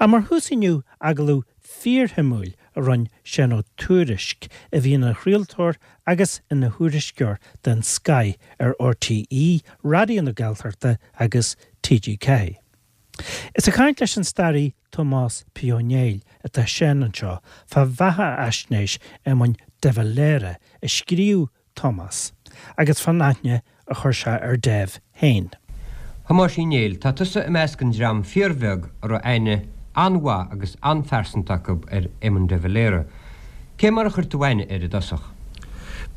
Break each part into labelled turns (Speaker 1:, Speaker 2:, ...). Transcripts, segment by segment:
Speaker 1: Ach mar thús inniu, agallamh fíorshuimiúil a rinne Seán Ó Tuairisg, a bhí ina chraoltóir agus ina thuairisceoir den scoith ar RTÉ Raidió na Gaeltachta agus TG4. Is ag caint leis an staraí Tomás P. Ó Néill atá Seán anseo fá bheathaisnéis Éamoinn de Valera a scríobh Tomás, agus fán aithne a chuir sé ar Dev féin.
Speaker 2: Thomáis Uí Néill, tá tusa i measc an dream fíorbheag a raibh aithne an-mhaith agus an-phearsanta acu ar Éamon de Valera. Cé mar a chuir tú aithne air i dtosach?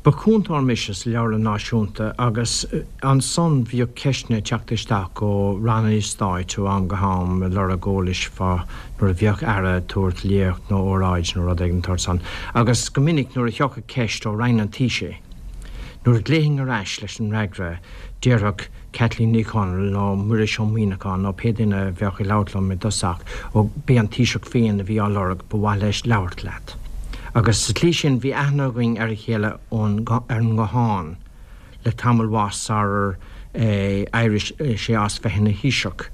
Speaker 3: Ba chúntóir mise sa Leabharlann Náisiúnta agus ansan bhíodh ceisteanna ag teacht isteach ó ranna stáit ó am go ham ag lorg eolais fá nuair a bheadh Aire ag tabhairt léacht nó óráid nó rud éigin den tsórt san agus go minic nuair a thiocfadh ceist ó Roinn an Taoisigh nuair a ghlaofainn ar ais leis an fhreagra déarfadh Caitlín Ní Chonaill nó Muiris Ó Muíneacháin nó pé duine a bheadh ag labhairt liom i dtosach, ó, b'é an Taoiseach féin a bhí á lorg, ba mhaith leis labhairt leat. Agus sa tslí sin bhí aithne againn ar a chéile ón, ar an nguthán le tamall mhaith sarar éirigh sé as bheith ina Thaoiseach.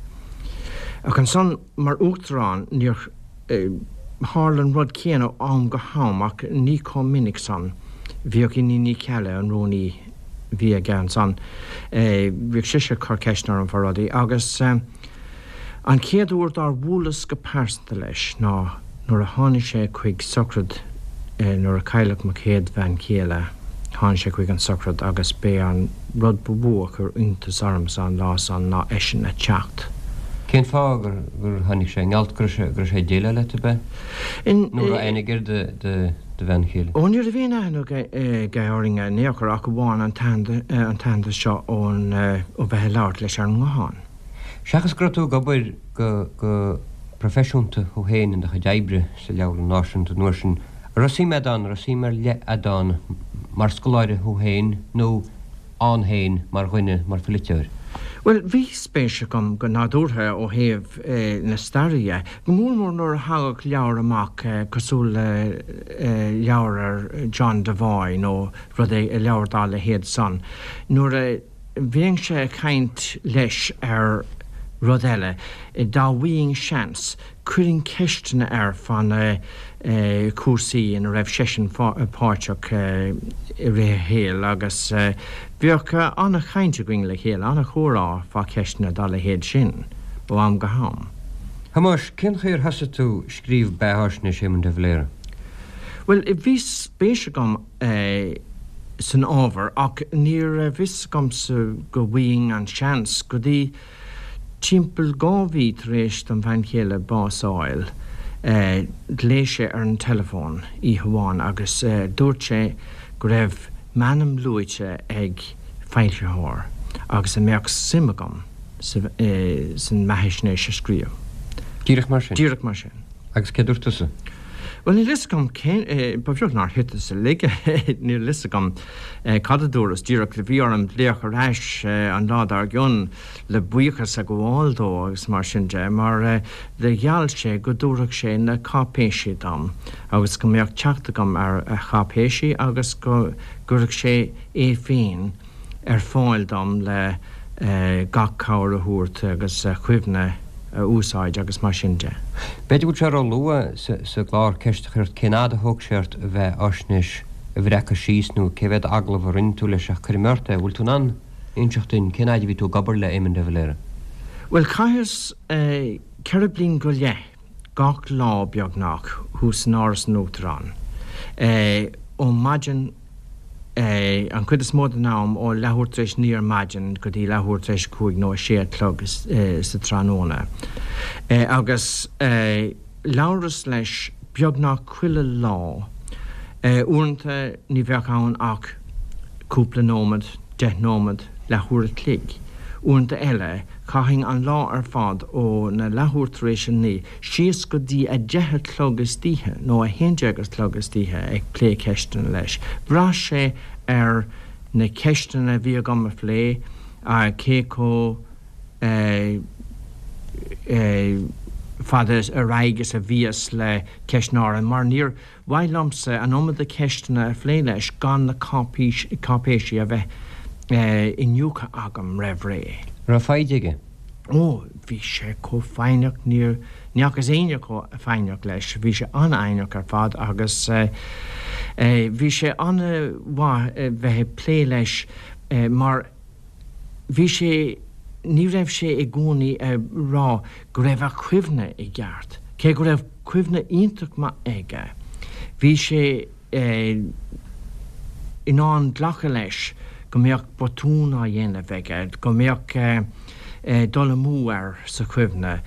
Speaker 3: Ach ansan, mar Uachtarán, níor tharla an rud céanna ó am go ham ach ní chomh minic san. Bhíodh Iníon Ní Cheallaigh, an rúnaí a bhí aige ansan, bhíodh sise ag cur ceisteanna orm fá rudaí agus an chéad uair dár bhuaileas go pearsanta leis ná nuair a tháinig sé chuig sochraid nuair a cailleadh mo chéad bhean chéile, tháinig sé chuig an sochraid agus b'é an rud ba mhó a chuir iontas ormsa an lá san ná eisean a teacht.
Speaker 2: Cén fáth gur tháinig sé? An gealt go raibh sé ag déileáil leat, ab ea? Nó raibh aithne aige ar do bhean chéile?
Speaker 3: Ó ní raibh aon aithne aige orainn in aon chor ach amháin an t-aitheantas seo ón ó bheith ag labhairt leis ar an nguthán.
Speaker 2: Seachas go raibh tú ag obair go proifisiúnta thú féin in do chuid oibre sa Leabharlann Náisiúnta an uair sin, an raibh suim agat ann, an raibh suim ar leith agat ann mar scoláire thú féin nó ann féin mar dhuine, mar pholaiteoir?
Speaker 3: Bhuel, bhí spéis agam go nádúrtha ó thaobh na staire dhe, go mór mór nuair a thagadh leabhar amach cosúil le leabhar ar John Devoy nó rud é, leabhar dá leithéid san. Nuair a bheinnse ag caint leis ar rud eile, dá bhfaighinn seans, Chuirfinn ceisteanna air fá na cúrsaí ina raibh seisean páirteach i rith a shaoil agus bheadh an-chaint againn le chéile, an-chomhrá fá cheisteanna dá leithéid sin ó am go ham.
Speaker 2: Thomáis, cén chaoi ar thosaigh tú ag scríobh beatháisnéis Éamon de Valera?
Speaker 3: Bhuel, bhí spéis agam san ábhar ach ní raibh fhios agamsa go bhfaighinn an seans go dtí Timpeall 2 mhí tar éis dom bhean chéile bás a fháil, ghlaoigh sé ar an teileafón oíche amháin agus dúirt sé go raibh m'ainm luaite ag foilsitheoir agus an mbeadh suim agam san mbeathaisnéis a scríobh.
Speaker 2: Díreach mar sin?
Speaker 3: Díreach mar sin.
Speaker 2: Agus cé dúirt tusa?
Speaker 3: Bhuel, níl fhios agam cén, ba bheag nár thiteas uilig, níl fhios agam cad a dúras, díreach bhí orm glaoch ar ais an lá dár gcionn le buíochas a ghabháil dó agus mar sin de, mar do gheall sé go dtabharfadh sé na cáipéisí dom agus go mbeadh teacht agam ar a cháipéisí agus go gcuirfeadh sé é féin ar fáil dom le gach cabhair a thabhairt agus a chuimhne a úsáid agus mar sin de.
Speaker 2: B'fhéidir go bhfuil sé ró-luath sa gclár ceist a chur ort cén fhad a thóg sé ort an bheatháisnéis a bhreacadh síos nó cé mhéad agallamh a rinne tú leis ach cuirfidh mé ort é, bhfuil tú in ann inseacht duinn cén fhaid a bhí tú ag obair le Éamon de Valera?
Speaker 3: Bhuel, chaitheas 4 bliain go leith gach lá beagnach thuas in Áras an Uachtaráin ó maidin an chuid is mó den am ó leathuair tar éis 9 ar maidin go dtí leathuair tar éis 5 nó 6 a chlog sa tráthnóna. Agus labhras leis beagnach chuile lá. Uaireanta ní bheadh ann ach cúpla nóiméad, 10 nóiméad, leathuair a chloig. Uaireanta eile chaithfinn an lá ar fad ó na leathuair tar éis 9 síos go dtí a 10 a chlog istoíche nó a 11 a chlog istoíche ag plé ceisteanna leis. Bhraith sé ar na ceisteanna a bhí agam a phlé, cé chomh fada ar aghaidh is a bhíos le ceisteanna áirithe, mar níor mhaith liomsa an iomad ceisteanna a phlé leis gan na cáipéisí a bheith iniúchta agam roimh ré.
Speaker 2: Raibh foighid aige?
Speaker 3: Ó, bhí sé chomh foighneach, níor. Ní fhacas éinne chomh foighneach leis. Bhí sé an-fhoighneach ar fad agus bhí sé an-mhaith bheith ag plé leis mar bhí sé, ní raibh sé i gcónaí ag rá go raibh a chuimhne i gceart, cé go raibh cuimhne iontach maith aige. Bhí sé in ann glacadh leis go mbeadh botún á dhéanamh aige, go mbeadh dul amú air sa chuimhne.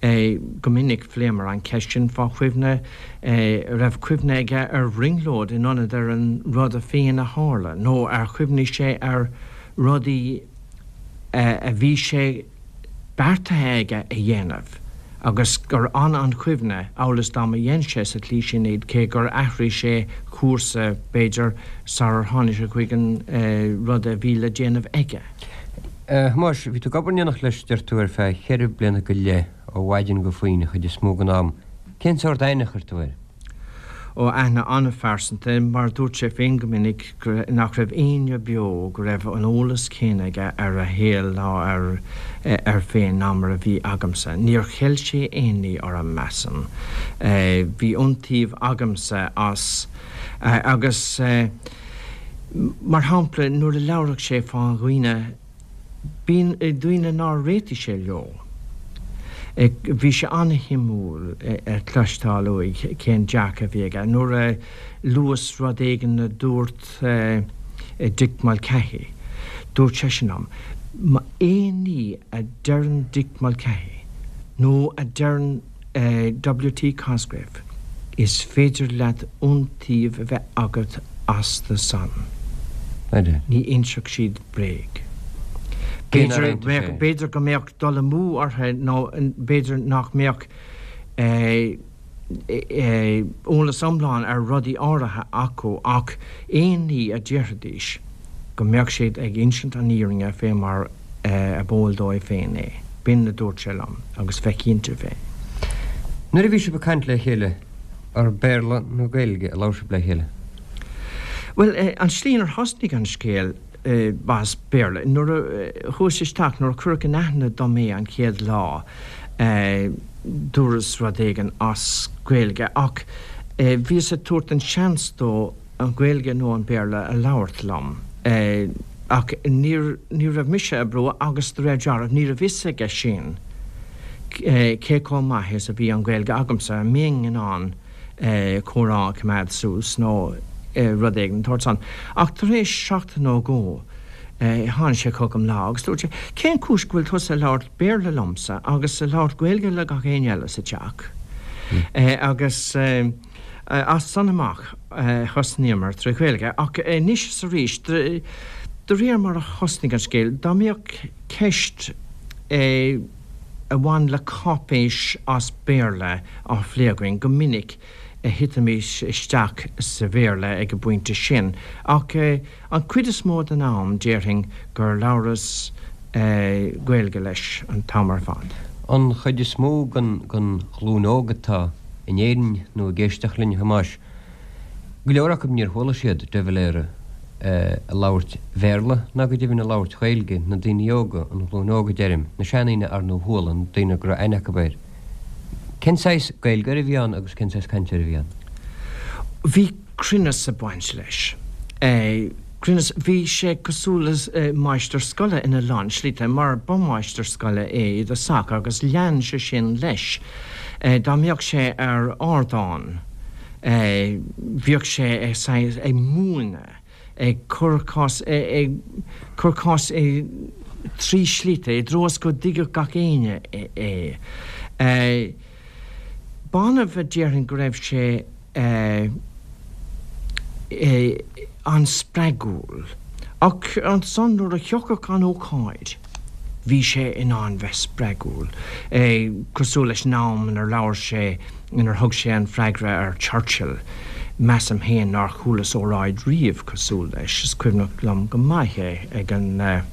Speaker 3: Go minic phléamar an cheist sin fá chuimhne, raibh cuimhne aige ar bhrionglóid in ionad ar an rud a féin a tharla, nó ar chuimhnigh sé ar rudaí a bhí sé beartaithe aige a dhéanamh agus gur fhan an chuimhne amhail is dá mba dhein sé sa tslí sin iad, cé gur athraigh sé cúrsa, b'fhéidir, sarar tháinig sé chuig an rud a bhí le déanamh aige.
Speaker 2: A Thomáis, bhí tú ag obair in éineacht leis, deir tú, ar feadh cheithre bliana go leith, ó mhaidin go faoin chuid is mó den am. Cén sórt aithne a chuir tú air?
Speaker 3: Ó, aithne an-phearsanta, mar dúirt sé féin go minic nach raibh éinne beo go raibh an eolas céanna aige ar a shaol ná air féin ná mar a bhí agamsa. Níor cheil sé aon ní orm, measaim. Bhí iontaoibh agamsa as agus, mar shampla, nuair a labhradh sé fá dhaoine, Bíonn daoine nár réitigh sé leo. Bhí sé an-shuimiúil a chloisteáil uaidh cén dearcadh a bhí aige. Nuair a luas rud éigin a dúirt Dick Mulcahy, dúirt seisean liom, aon ní a deireann Dick Mulcahy nó a deireann WT Cosgrave, Is féidir leat iontaoibh a bheith agat astu san. Ní inseoidh siad bréag. B'fhéidir go mbeadh dul amú orthu nó b'fhéidir nach mbeadh eolas iomlán ar rudaí áirithe acu ach aon ní a déarfaidís, go mbeadh siad ag insint an fhírinne fé mar a b'eol dóibh féin é. B'in a dúirt sé liom, agus bheith cinnte fé.
Speaker 2: Nuair a bhí sibh ag caint le chéile, ar Béarla nó Gaeilge a labhair sibh le chéile?
Speaker 3: Bhuel, an tslí inar thosnaigh an scéal, ba as Béarla. Nuair a chuas isteach, nuair a cuireadh in aithne dom é an chéad lá, dúras rud éigin as Gaeilge, ach bhíos ag tabhairt an seans dó an Ghaeilge nó an Béarla a labhairt liom. Ach ní ní raibh mise ag brú agus de réir dealraimh ní raibh fhios aige sin cé chomh maith is a bhí an Ghaeilge agamsa, an mbeinn in ann comhrá a choimeád suas nó rud éigin den tsórt san. Ach tar éis seachtain nó dhó tháinig sé chugam lá agus dúirt sé, 'Cén chúis go bhfuil tusa ag labhairt Béarla liomsa agus ag labhairt Gaeilge le gach éinne eile sa teach?' Agus. As san amach thosnaíomar tré Ghaeilge, ach anois is arís, de réir mar a thosnaigh an scéal, dá mbeadh ceist a bhain le cáipéis as Béarla á phlé againn, go minic thitimis isteach sa Bhéarla ag an bpointe sin. Ach an chuid is mó den am, déarfainn gur labhras Gaeilge leis an t-am ar fad.
Speaker 2: An chuid is mó den ghlúin óg atá in Éirinn nó ag éisteacht linn, a Thomáis, go leor acu níor chuala siad de Valera ag labhairt Bhéarla ná go deimhin ag labhairt Ghaeilge, na daoine óga, an ghlúin óg a deirim, na seandaoine ar ndóigh chuala, na daoine go raibh aithne acu air. Cén saghas Gaeilgeoir a bhí ann agus cén saghas cainteoir a bhí ann?
Speaker 3: Bhí cruinneas ag baint leis. Cruinneas, bhí sé cosúil le máistir scoile ina lán slite, mar ba mháistir scoile é i dtosach agus lean sé sin leis. Dá mbeadh sé ar ardán, bhíodh sé saghas ag múineadh, ag cur cás, ag cur cás i dtrí slite, i dtreo is go dtuigfeadh gach éinne é. B'annamh a déarfainn go raibh sé an-spreagúil, ach ansan nuair a thiocfadh an ócáid, bhí sé in ann bheith spreagúil, cosúil leis an am inar labhair sé, inar thug sé an freagra ar Churchill. Measaim féin nár chualas óráid riamh cosúil leis, is cuimhneach liom go maith é ag an, ag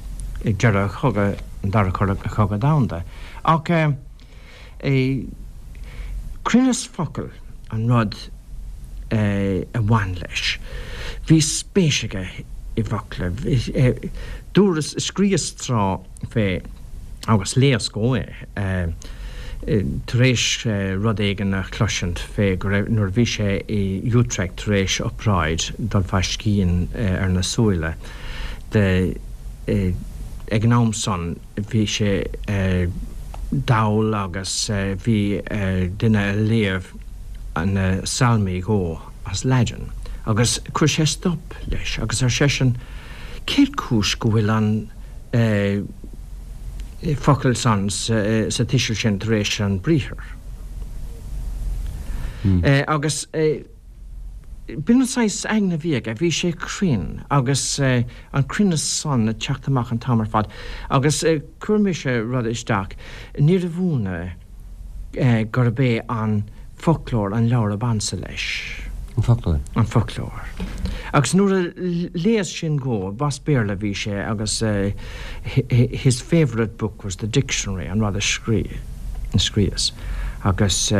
Speaker 3: deireadh chogadh, an Dara Cogadh Domhanda. Ach. Cruinneas focal an rud a bhain leis. Bhí spéis aige i bhfocla. Dúras, scríos tráth fé, agus léas dhó é. tar éis rud éigin a chloisint fé go raibh, nuair a bhí sé i Utrecht tar éis obráid dul fá scian ar na súile de, ag an am san bhí sé dall agus bhí duine a léamh na Salmaí dhó as Laidin agus chuir sé stop leis agus ar seisean cén chúis go bhfuil an focal san sa tuiseal sin tar éis an briathar. Agus b'in an saghas aigne a bhí aige, bhí sé cruinn agus an cruinneas san ag teacht amach an t-am ar fad. Agus chuir mise rud isteach, níorbh ionadh gurb é an foclóir an leabhar ab ansa leis.
Speaker 2: An foclóir?
Speaker 3: An foclóir. Agus nuair a léas sin dhó, b'as Béarla a bhí sé agus his favourite book was the dictionary, an rud a scríos. Agus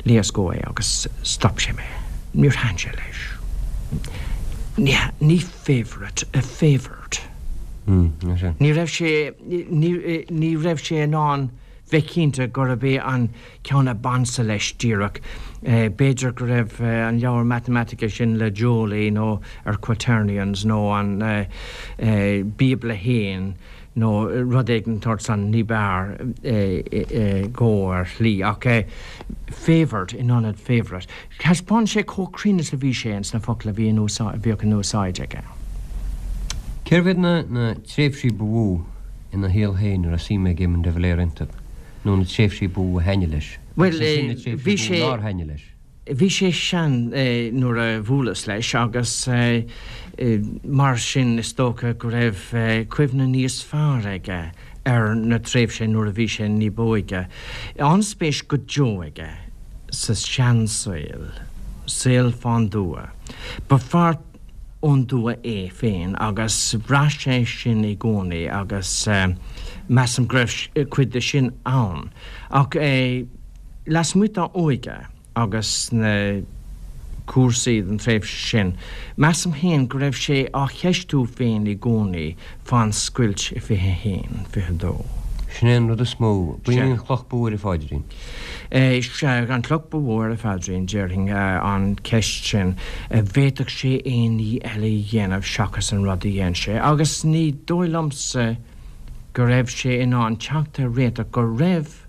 Speaker 3: léas dhó é agus stop sé mé. Níor thaitin sé leis. Ní favourite, favoured. Ní raibh sé, ní raibh sé in ann bheith cinnte gurb é an ceann ab ansa leis díreach. B'fhéidir go raibh an leabhar matamaitice sin le Joly nó ar Quaternions nó an Bíobla fhéin nó rud éigin den tsórt san ní b'fhearr dhó ar shlí. Ach favoured in ionad favourite. Thaispeáin sé chomh cruinn is a bhí sé ins na focail a bhí in úsáid, a bhíodh in úsáid aige.
Speaker 2: Cérbh iad na tréimhsí ba mhó ina shaol féin a raibh suim ag Éamon de Valera iontu, nó na tréimhsí ba mhó a thaitnigh leis,
Speaker 3: Bhuel,
Speaker 2: agus ansin na tréimhsí
Speaker 3: bhí
Speaker 2: ba mhó
Speaker 3: sé.
Speaker 2: nár thaitnigh leis?
Speaker 3: Bhí sé sean nuair a bhuaileas leis agus mar sin is dócha go raibh cuimhne níos fearr aige ar na tréimhse nuair a bhí sé ní b'óige. An-spéis go deo aige sa seansaol, saol fán dtuath. Ba fear ón dtuath é féin agus bhraith sé sin i gcónaí agus measaim go raibh cuid de sin ann. Ach lasmuigh dá óige agus na cúrsaí den tréimhse sin, measaim féin go raibh sé á cheistiú féin i gcónaí fán scoilt i 21, 22.
Speaker 2: Sin é an rud is mó. B'in í an chloch ba mhó air, a Pháidrín.
Speaker 3: Sea, an chloch ba mhó air, a Pháidrín, déarfainn, an cheist sin. An bhféadfadh sé aon ní eile a dhéanamh seachas an rud a dhein sé? Agus ní dóigh liomsa go raibh sé in ann teacht ar réiteach go raibh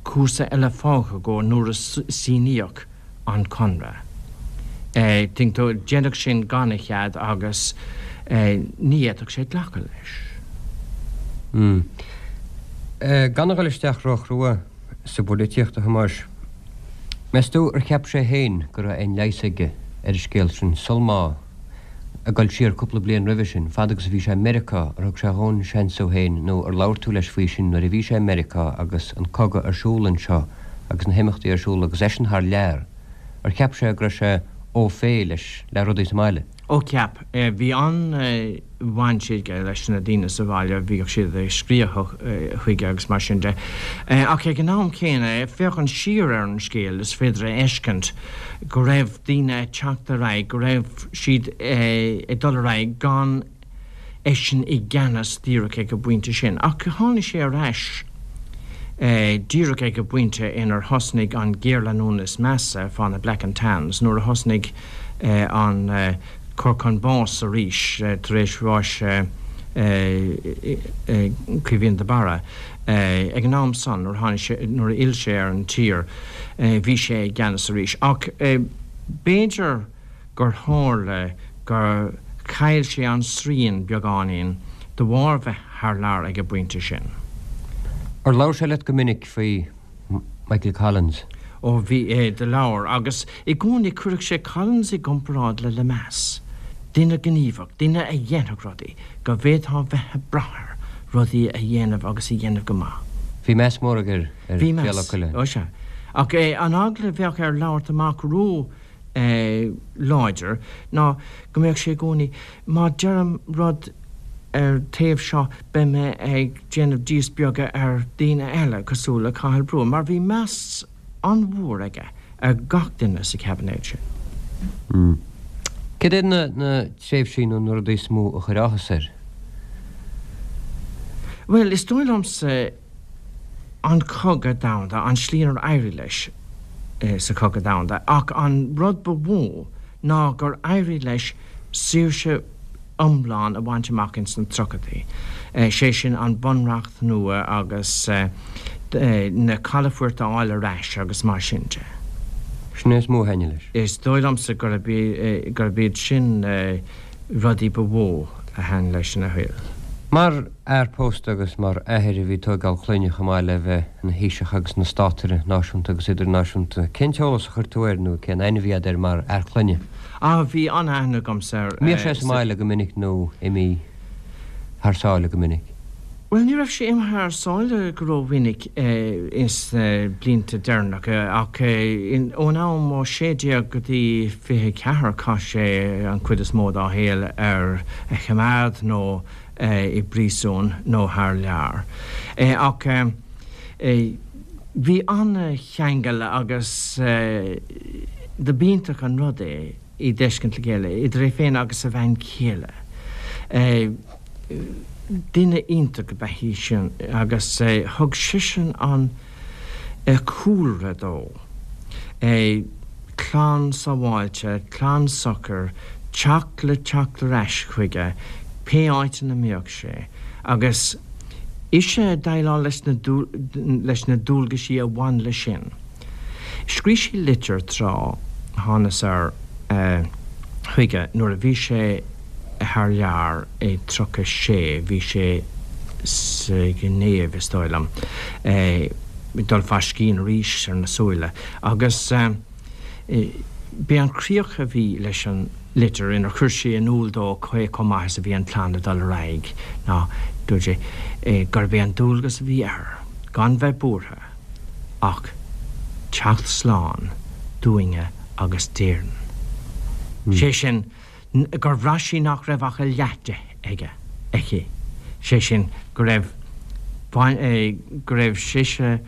Speaker 3: cúrsa eile fágtha dhó nuair a síníodh an conradh. Tuigeann tú, déanadh sin gan a chead agus ní fhéadfadh sé glacadh leis.
Speaker 2: Gan a dhul isteach ró-chrua sa bpolaitíocht, a Thomáis, meas tú ar cheap sé féin go raibh aon leigheas aige ar an scéal sin sul má, ag dul siar cúpla bliain roimhe sin, fad agus a bhí sé i Meiriceá, ar thug sé dhó an seans dhó féin nó ar labhair tú leis faoi sin nuair a bhí sé i Meiriceá agus an cogadh ar siúl anseo agus na himeachtaí ar siúl agus eisean thar lear, ar cheap sé go raibh sé au fait leis le rudaí sa mbaile?
Speaker 3: Ó cheap. Bhí an-bhaint aige leis na daoine sa bhaile, bhíodh siad ag scríobh chuige agus mar sin de. Ach ag an am céanna, féachaint siar ar an scéal, is féidir a fheiscint go raibh daoine ag teacht ar aghaidh, go raibh siad ag dul ar aghaidh gan eisean i gceannas díreach ag an bpointe sin. Ach tháinig sé ar ais díreach ag an bpointe inar thosnaigh an géarleanúint is measa fá na Black and Tans, nuair a thosnaigh an cur chun báis arís tar éis bháis Caoimhín de Barra. Ag an am san, nuair a tháinig sé, nuair a fhill sé ar an tír, bhí sé i gceannas arís. Ach b'fhéidir gur tharla gur chaill sé an srian beagáinín de bharr bheith thar lear ag an bpointe sin.
Speaker 2: Ar labhair sé leat go minic faoi Michael Collins?
Speaker 3: Ó bhí, do labhair. Agus i gcónaí chuireadh sé Collins i gcomparáid le Lemass, duine gníomhach, duine a dhéanfadh rudaí, go bhféadfá bheith ag brath air rudaí a dhéanamh agus a dhéanamh go maith.
Speaker 2: Bhí meas mór aige ar
Speaker 3: Bhí
Speaker 2: Ghéarla
Speaker 3: meas,
Speaker 2: Cuilinn.
Speaker 3: ó sea. Ach an eagla a bheadh air labhairt amach ró láidir ná go mbeadh sé i gcónaí, má deirim rud ar taobh seo beidh mé ag déanamh díspeagadh ar daoine eile cosúil le Cathal Brugha, mar bhí meas an-mhór aige ar gach duine sa chaibinéad
Speaker 2: sin. Cad iad na tréimhsí nó na rudaí is mó a chuir áthas air?
Speaker 3: Bhuel, is dóigh liomsa. An Cogadh Domhanda, an tslí inar éirigh leis sa Chogadh Domhanda, ach an rud ba mhó ná gur éirigh leis saoirse iomlán a bhaint amach ins na tríochaidí, sé sin an Bunreacht nua agus na calafoirt a fháil ar ais agus mar sin de.
Speaker 2: Sin é is mó a thaitnigh leis.
Speaker 3: Is dóigh liomsa gurb iad sin na rudaí ba mhó a thaitnigh leis ina shaol.
Speaker 2: Mar fhear pósta agus mar athair a bhí ag tóigeáil clainne chomh maith le bheith ina Thaoiseach agus ina státaire náisiúnta agus idirnáisiúnta, cén t-eolas a chuir tú air nó cén aithne a bhí agat air mar fhear clainne?
Speaker 3: Ah, bhí an-aithne agamsa air.
Speaker 2: Mbíodh sé sa mbaile go minic nó imithe thar sáile go minic?
Speaker 3: Bhuel, ní raibh sé imithe thar sáile go rómhinic ins na blianta deireanacha ach ón am ó 16 go dtí 24 chaith sé an chuid is mó dá shaol ar choimeád nó i bpríosún nó thar lear. Ach bhí an-cheangal agus do b'iontach an rud é iad d'fheiscint le chéile, idir é féin agus a bhean chéile. Duine iontach ab ea í sin agus thug seisean an cúlra dó. Clann sábháilte, clann socair, teach le teacht ar ais chuige pé áit ina mbeadh sé, agus ise ag déileáil leis na leis na dualgaisí a bhain leis sin. Scrígh sí litir tráth, thánas air chuige nuair a bhí sé thar lear i 36, bhí sé sa Ghinéiv is dóigh liom, ag dul fá scian arís ar na súile agus b'é an chríoch a bhí leis an litir inar chuir sí in iúl dó cé chomh maith is a bhí an chlann ag dul ar aghaidh ná, dúirt sí, gurb é an dualgas a bhí air gan bheith buartha ach teacht slán dúinne agus d'Éirinn. Sé sin, gur bhraith sí nach raibh ach a leath de aige, aici, sé sin, go raibh, go raibh sise,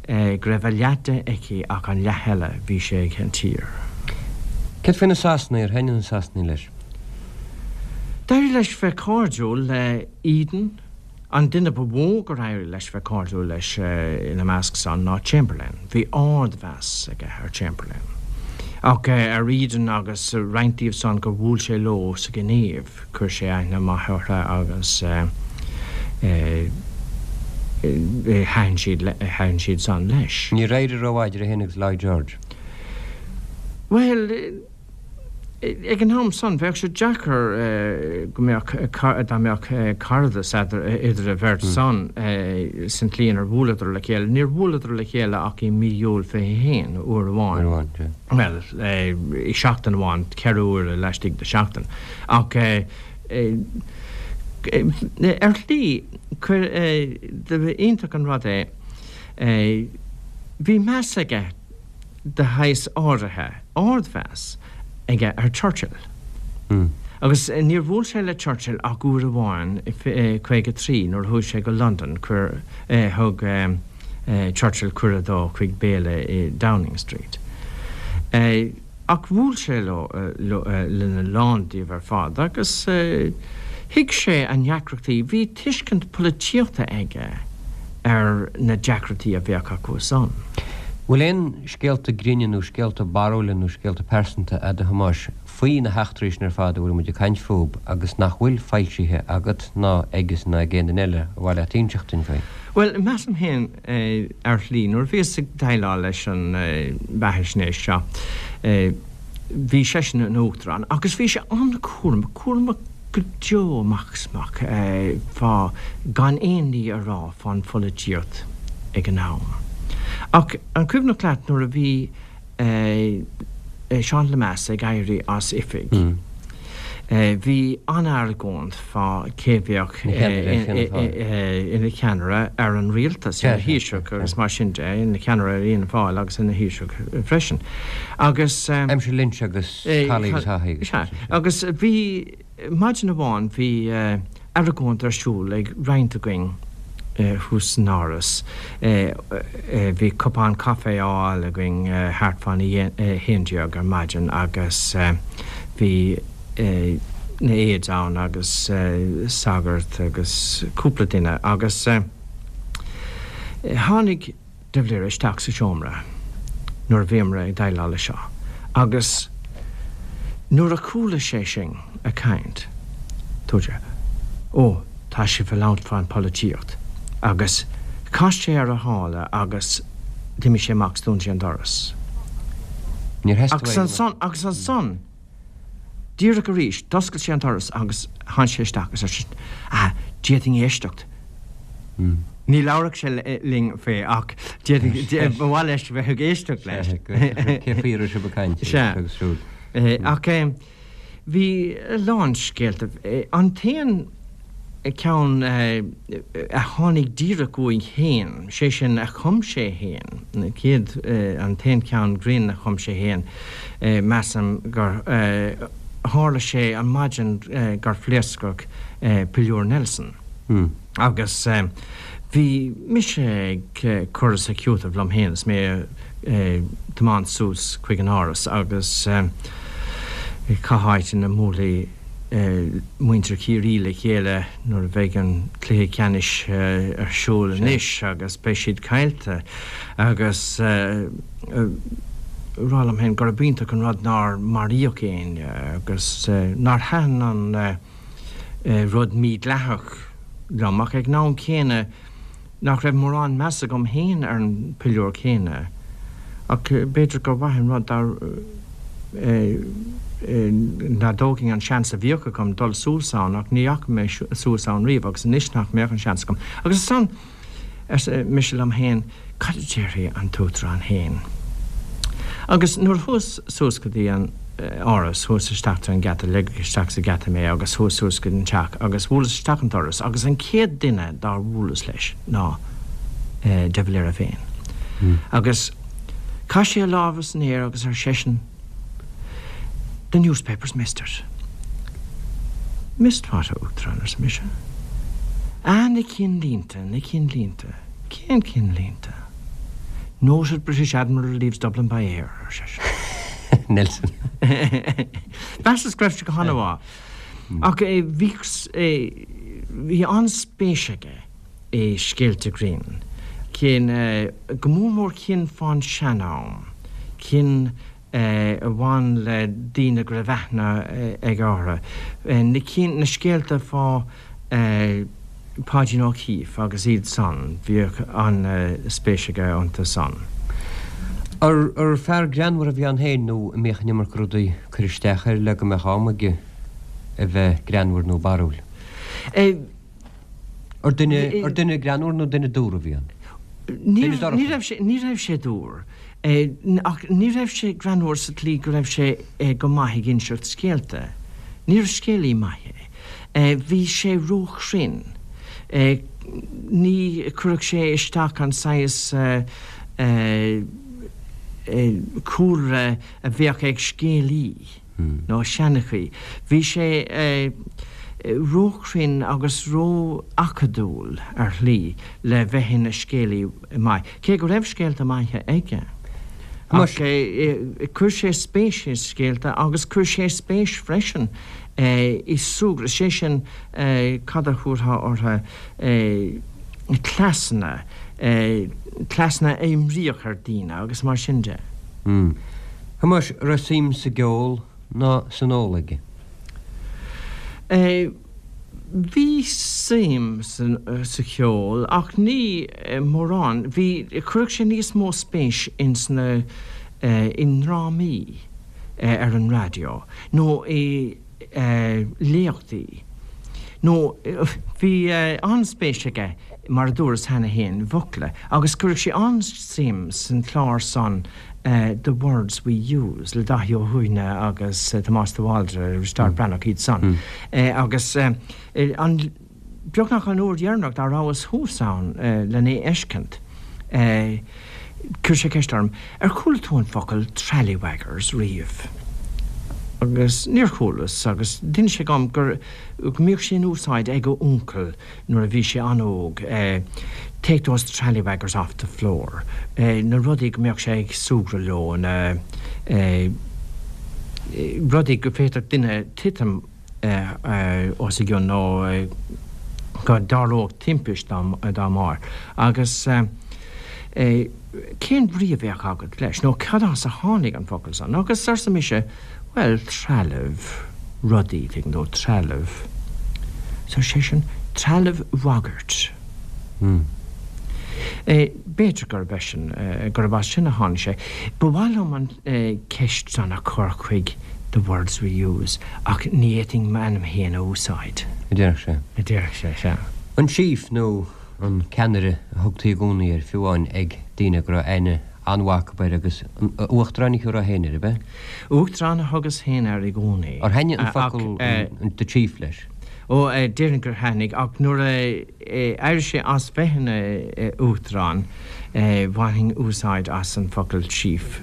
Speaker 3: go raibh a leath de aici ach an leath eile, bhí sé ag an tír.
Speaker 2: Céard faoi na Sasanaigh, ar thaitnigh na Sasanaigh leis?
Speaker 3: D'éirigh leis bheith cairdiúil le Eden, An duine ba mhó gur éirigh leis bheith cairdiúil leis ina measc san ná Chamberlain. Bhí ard-mheas aige ar Chamberlain. Ach ar Eden agus roinnt díobh san gur bhuail sé leo sa Ghinéiv, chuir sé aithne maith orthu agus thaitin siad, thaitin siad san leis.
Speaker 2: Níor éirigh rómhaith idir é féin agus Lloyd George.
Speaker 3: Bhuel. Ag an am san, bheadh sé deacair go mbeadh, dá mbeadh caradas idir an bheirt san san tslí inar bhuaileadar le chéile. Níor bhuaileadar le chéile ach i mí Iúil 21, uair amháin. Bhuel, i seachtain amháin, 4 huaire laistigh de sheachtain. Ach ar shlí, iontach an rud é, bhí meas aige de shaghas áirithe, ardmheas aige ar Churchill. Agus níor bhuail sé le Churchill ach uair amháin i 53 nuair a chuaigh sé go Londain, chuir, thug Churchill cuireadh dó chuig béile i Downing Street. Ach bhuail sé leo, lena lán díobh ar fad agus thuig sé a ndeacrachtaí. Bhí tuiscint polaitíochta aige ar na deacrachtaí a bheadh acu san.
Speaker 2: Bhfuil aon scéalta grinne nó scéalta barrúla nó scéalta pearsanta a'd a Thomáis faoi na heachtraí sin ar fad a bhfuil muid ag caint fúb agus nach bhfuil foilsithe agat ná aigesan ná ag aon duine eile ar mhaith leat inseacht duinn faoi?
Speaker 3: Bhuel, measaim féin Ar shlí, nuair a bhíos ag déileáil leis an bheathaisnéis seo, bhí seisean ina Uachtarán agus bhí sé an-chúramach, cúramach go deo amach is amach fá gan aon ní a rá fán pholaitíocht ag an am. Ach an cuimhneach leat nuair a bhí Seán Lemass ag éirí as oifig. Bhí an-argóint fá cé bheadh ina cheannaire ar an rialtas, ina Thaoiseach agus mar sin de, ina cheannaire ar Fhianna Fáil agus ina Thaoiseach freisin. Agus.
Speaker 2: Aimsir Lynch agus Calley agus Haughey agus.
Speaker 3: Sea. Agus bhí. Maidin amháin bhí argóint ar siúl ag roinnt againn thuas san Áras. Bhí cupán caife á fháil againn thart fán 11 ar maidin agus bhí na aides ann agus sagart agus cúpla duine agus tháinig. de Valera isteach sa seomra nuair a bhíomar ag déileáil leis seo agus nuair a chuala sé sinn ag caint, dúirt sé, Ó, tá sibh ag labhairt fán pholaitíocht agus chas sé ar a shála agus d'imigh sé amach 's dún sé an doras.
Speaker 2: Níor theastaigh
Speaker 3: uaidh go mbeadh. Agus ansan, díreach arís, d'oscail sé an doras agus tháinig sé isteach agus ar seisean, Ah, d'fhéadfainn éisteacht. Ní labharfadh sé linn faoi ach d'fhéadfainn, ba mhaith leis bheith ag éisteacht leis.
Speaker 2: Cé faoi a raibh sibh ag caint agus siúd.
Speaker 3: Sea. Ach bhí a lán scéalta. An t-aon ceann a tháinig díreach uaidh féin, sé sin a chum sé féin, an chéad, an t-aon cheann grinn a chum sé féin, measaim gur tharla sé an maidin gur phléascadh Piliúr Nelson. Agus bhí mise ag cur is ag cúiteamh liom féin is mé ag tiomáint suas chuig an Áras agus cá háit ina mbuailfidh muintir Chiarraí le chéile nuair a bheidh an cluiche ceannais ar siúl anois agus beidh siad caillte agus rá liom féin gurb iontach an rud nár maraíodh éinne agus nár thaitin an rud mídhleathach liom, ach ag an am céanna nach raibh mórán meas agam féin ar an bpiliúr céanna. Ach b'fhéidir gur mhaith an rud dá dá dtógfainn an seans a bhíodh agam dul suas ann, ach ní dheachaigh mé suas ann riamh agus anois nach mbeadh an seans agam. Agus ansan. arsa mise liom féin, cad a déarfaidh an tUachtarán féin? Agus nuair a chuas suas go dtí an Áras, chuas isteach trí an geata, ligeadh isteach sa gheata mé agus chuas suas go dtí an teach agus bhuaileas isteach an doras agus an chéad duine dár bhuaileas leis ná de Valera féin. Agus chaith sé a lámha san aer agus ar seisean, The newspapers missed it. Missed what, a Uachtaráin? arsa mise. Ah, na cinnlínte, na cinnlínte. Cén cinnlínte? Noted British Admiral leaves Dublin by air, ar seisean.
Speaker 2: Nelson.
Speaker 3: Mheasas go raibh sé go han-mhaith. Ach bhí, bhí an-spéis aige i scéalta grinn, cinn, go mór mór cinn fán sean-am, cinn a bhain le daoine go raibh aithne aige orthu, na cinn, na scéalta fá Pháidín O'Keeffe agus iad san, bhíodh an-spéis aige iontu san.
Speaker 2: Ar fear greannmhar a bhí ann féin nó an mbíodh an iomarca rudaí ag cur isteach air le go mbeadh am aige a bheith greannmhar nó barrúil? Ar duine, ar duine greannmhar nó duine dúr a bhí ann?
Speaker 3: Ní raibh sé, ní raibh sé dúr. Ach ní raibh sé greannmhar sa tslí go raibh sé go maith ag inseacht scéalta. Níorbh scéalaí maith é. Bhí sé róchruinn. Ní chuirfeadh sé isteach an saghas cúlra a bheadh ag scéalaí. nó seanchaí. Bhí sé róchruinn agus ró-acadúil ar shlí le bheith ina scéalaí maith, cé go raibh scéalta maithe aige. Ach chuir sé spéis i scéalta agus chuir sé spéis freisin i súgradh, sé sin cad a thabharfá orthu, cleasanna, cleasanna a imríodh ar daoine agus mar sin de.
Speaker 2: Thomáis, raibh suim sa gceol ná san ól aige?
Speaker 3: Bhí suim sa cheol ach ní mórán. Bhí, chuireadh sé níos mó spéis ins na, i ndrámaí ar an raidió nó i léachtaí. Nó bhí an-spéis aige, mar a dúras cheana féin, i bhfocla agus chuireadh sé an-suim san chlár san The Words We Use le Daithí Ó Suibhne agus Tomás de Bhaldraithe, Risteárd Breathnach, iad san. Agus an, beagnach an uair dheireanach dá rabhas thuas ann len é fheiscint, chuir sé ceist orm, Ar chuala tú an focal trallywaggers riamh? Agus níor chualas, agus d'inis sé dhom gur, go mbíodh sé in úsáid ag a uncail nuair a bhí sé an-óg, take those trallywaggers off the floor, na rudaí go mbeadh sé ag súgradh leo, na rudaí go bhféadfadh duine titim os a gcionn nó go dtarlódh timpist dá mbarr. Agus. Cén bhrí a bheadh agat leis, nó cad as a tháinig an focal san? Agus arsa mise, Bhuel, trealamh, rudaí, tuigeann tú, trealamh. So ar seisean, Trealamh bhagairt. B'fhéidir gurb eisean, gurb as sin a tháinig sé. Ba mhaith liom an ceist san a chur chuig The Words We Use ach ní fhéadfainn m'ainm féin a úsáid.
Speaker 2: A déarfadh sé.
Speaker 3: A déarfadh sé, sea.
Speaker 2: An Chief nó an ceannaire a thugtaí i gcónaí air, fiú amháin ag daoine go raibh aithne an-mhaith acu air agus an Uachtarán a thiúrfá féin air, ab ea?
Speaker 3: Uachtarán a thugas féin air i gcónaí.
Speaker 2: Ar thaitnigh an focal the Chief leis?
Speaker 3: Ó, déarfainn gur thaitnigh, ach nuair a éirigh sé as bheith ina Uachtarán, bhainfinn úsáid as an focal Chief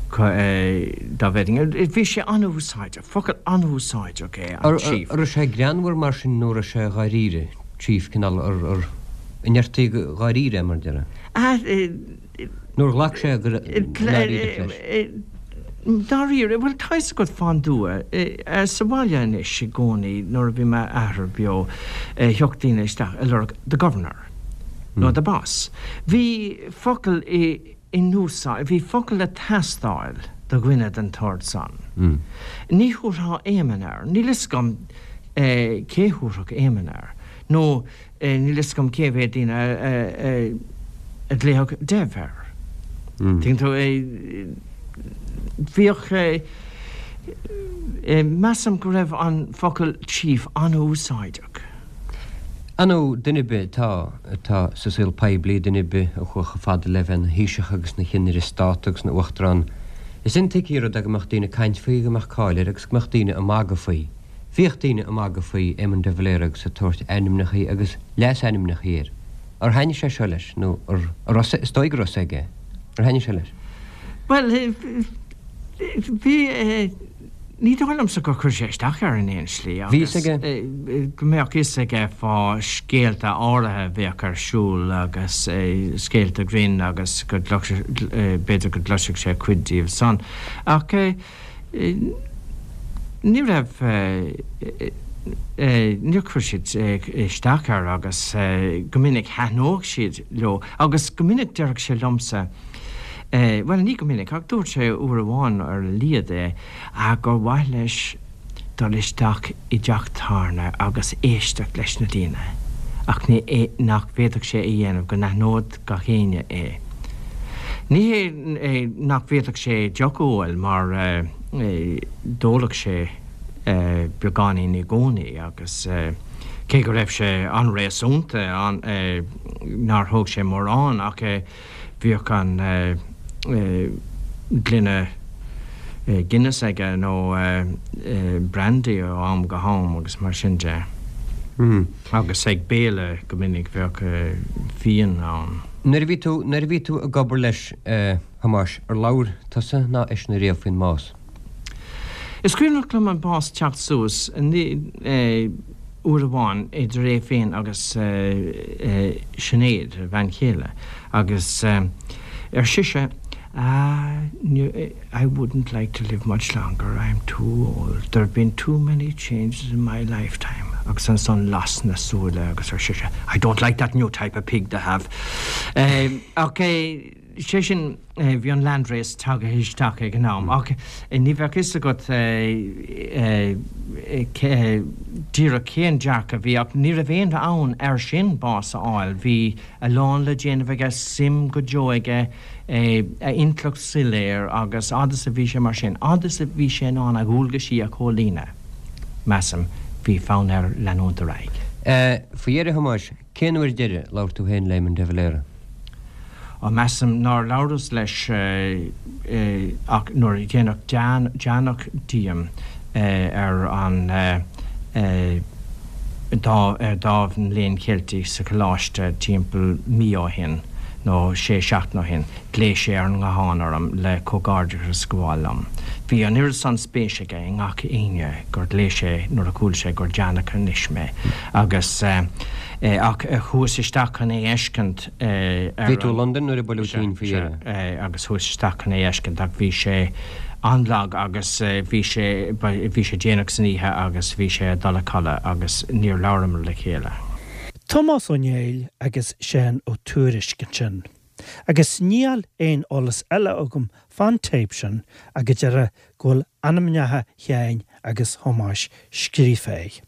Speaker 3: dá bhféadfainn. Bhí sé an-úsáideach, focal an-úsáideach é an
Speaker 2: Chief. An raibh sé greannmhar mar sin nó an raibh sé dháiríre, Chief, cineál, ar, an ndeirtí dháiríre é mar a déarfá? Nó ar ghlac sé go ndáiríreach
Speaker 3: leis? Dáiríre, bhuel tá fhios agat fán dtuath, sa bhaile anois i gcónaí nuair a bhí m'athair beo thiocfadh daoine isteach ag lorg the governor nó the boss. Bhí focal in úsáid, bhí focal ag teastáil do dhuine den tsórt san. Ní thabharfá Éamonn air, níl fhios agam cé thabharfadh Éamonn air nó Níl fhios agam cé mhéad daoine a ghlaofadh Dev air. Tuigeann tú? Bhíodh, measaim go raibh an focal chief an-úsáideach.
Speaker 2: Ar ndóigh, duine ar bith atá, atá sa saol poiblí, duine ar bith a chuaigh chomh fada le bheith ina Thaoiseach agus ina Chinnéire Stát agus ina Uachtarán, is intuigthe an rud é go mbeadh daoine ag caint faoi, go mbeadh cáil air agus go mbeadh daoine ag magadh faoi. Bhíodh daoine ag magadh faoi Éamon de Valera agus ag tabhairt ainmneachaí agus leasainmneachaí air. Ar thaitnigh sé seo leis, nó ar, ar raibh, is dóigh go raibh fhios aige. Ar thaitnigh sé leis?
Speaker 3: Bhuel, bhí, ní dóigh liomsa gur chuir sé isteach air in aon slí
Speaker 2: agus. Bhí fhios aige?
Speaker 3: Go mbeadh fhios aige fá scéalta áirithe a bheadh ar siúl agus scéalta grinn agus go gcloisfeadh, b'fhéidir go gcloisfeadh sé cuid díobh san. Ach. Ní raibh, níor chuir siad isteach air agus go minic thaitneodh siad leo agus go minic déarfadh sé liomsa, bhuel ní go minic ach dúirt sé uair amháin ar a laghad é, gur mhaith leis dul isteach i dteach tábhairne agus éisteacht leis na daoine ach ní, nach bhféadfadh sé a dhéanamh go n-aithneodh gach éinne é. Ní hé nach bhféadfadh sé deoch a ól mar d'óladh sé beagáinín i gcónaí agus cé go raibh sé an-réasúnta nár thóg sé mórán ach bhíodh an gloine Guinness aige nó brandy ó am go ham agus mar sin de. Agus ag béile go minic bheadh fíon ann.
Speaker 2: Nuair a bhí tú, nuair a bhí tú ag obair leis, a Thomáis, ar labhair tusa ná eisean ariamh faoin mbás?
Speaker 3: Is cuimhneach liom an bás teacht suas uair amháin idir é féin agus Sinéad, a bhean chéile, agus ar sise, Ah, I wouldn't like to live much longer, I'm too old, there have been too many changes in my lifetime agus ansan las na súile agus ar sise, I don't like that new type of pig they have. Ach sé sin, bhí an landrace tagtha isteach ag an am ach ní bheadh fhios agat díreach cén dearcadh a bhí ach ní raibh aon fhonn air sin bás a fháil, bhí a lán le déanamh aige, suim go deo aige, a intleacht soiléir agus fhad is a bhí sé mar sin, fhad is a bhí sé in ann a dhualgaisí a chomhlíonadh, measaim, bhí fonn air leanúint ar aghaidh.
Speaker 2: Faoi dheireadh, a Thomáis, cén uair deiridh a labhair tú féin le Éamon de Valera?
Speaker 3: Á, measaim nár labhras leis ach nuair a déanadh deánach díom ar an ar Dámh an Léinn Cheiltigh sa Choláiste timpeall mí ó shin, nó sé seachtain ó shin, ghlaoigh sé ar an nguthán orm le comhghairdeachas a ghabháil liom. Bhí an oiread san spéis aige i ngach éinne gur ghlaoigh sé nuair a chuala sé gur deánach anois mé. Agus, ach chuas isteach chun é fheiscint
Speaker 2: ar Bhí tú i Londain nuair a buaileadh tinn faoi dheireadh.
Speaker 3: Sea, agus chuas isteach chun é fheiscint ach bhí sé an-lag agus bhí sé, bhí sé déanach san oíche agus bhí sé ag dul a chodladh agus níor labhramar le chéile.
Speaker 1: Tomás Ó Néill agus Seán Ó Tuairisg ansin. Agus níl aon eolas eile agam fán téip sin ach go deire go bhfuil ainmneacha Sheáin agus Thomáis scríofa air.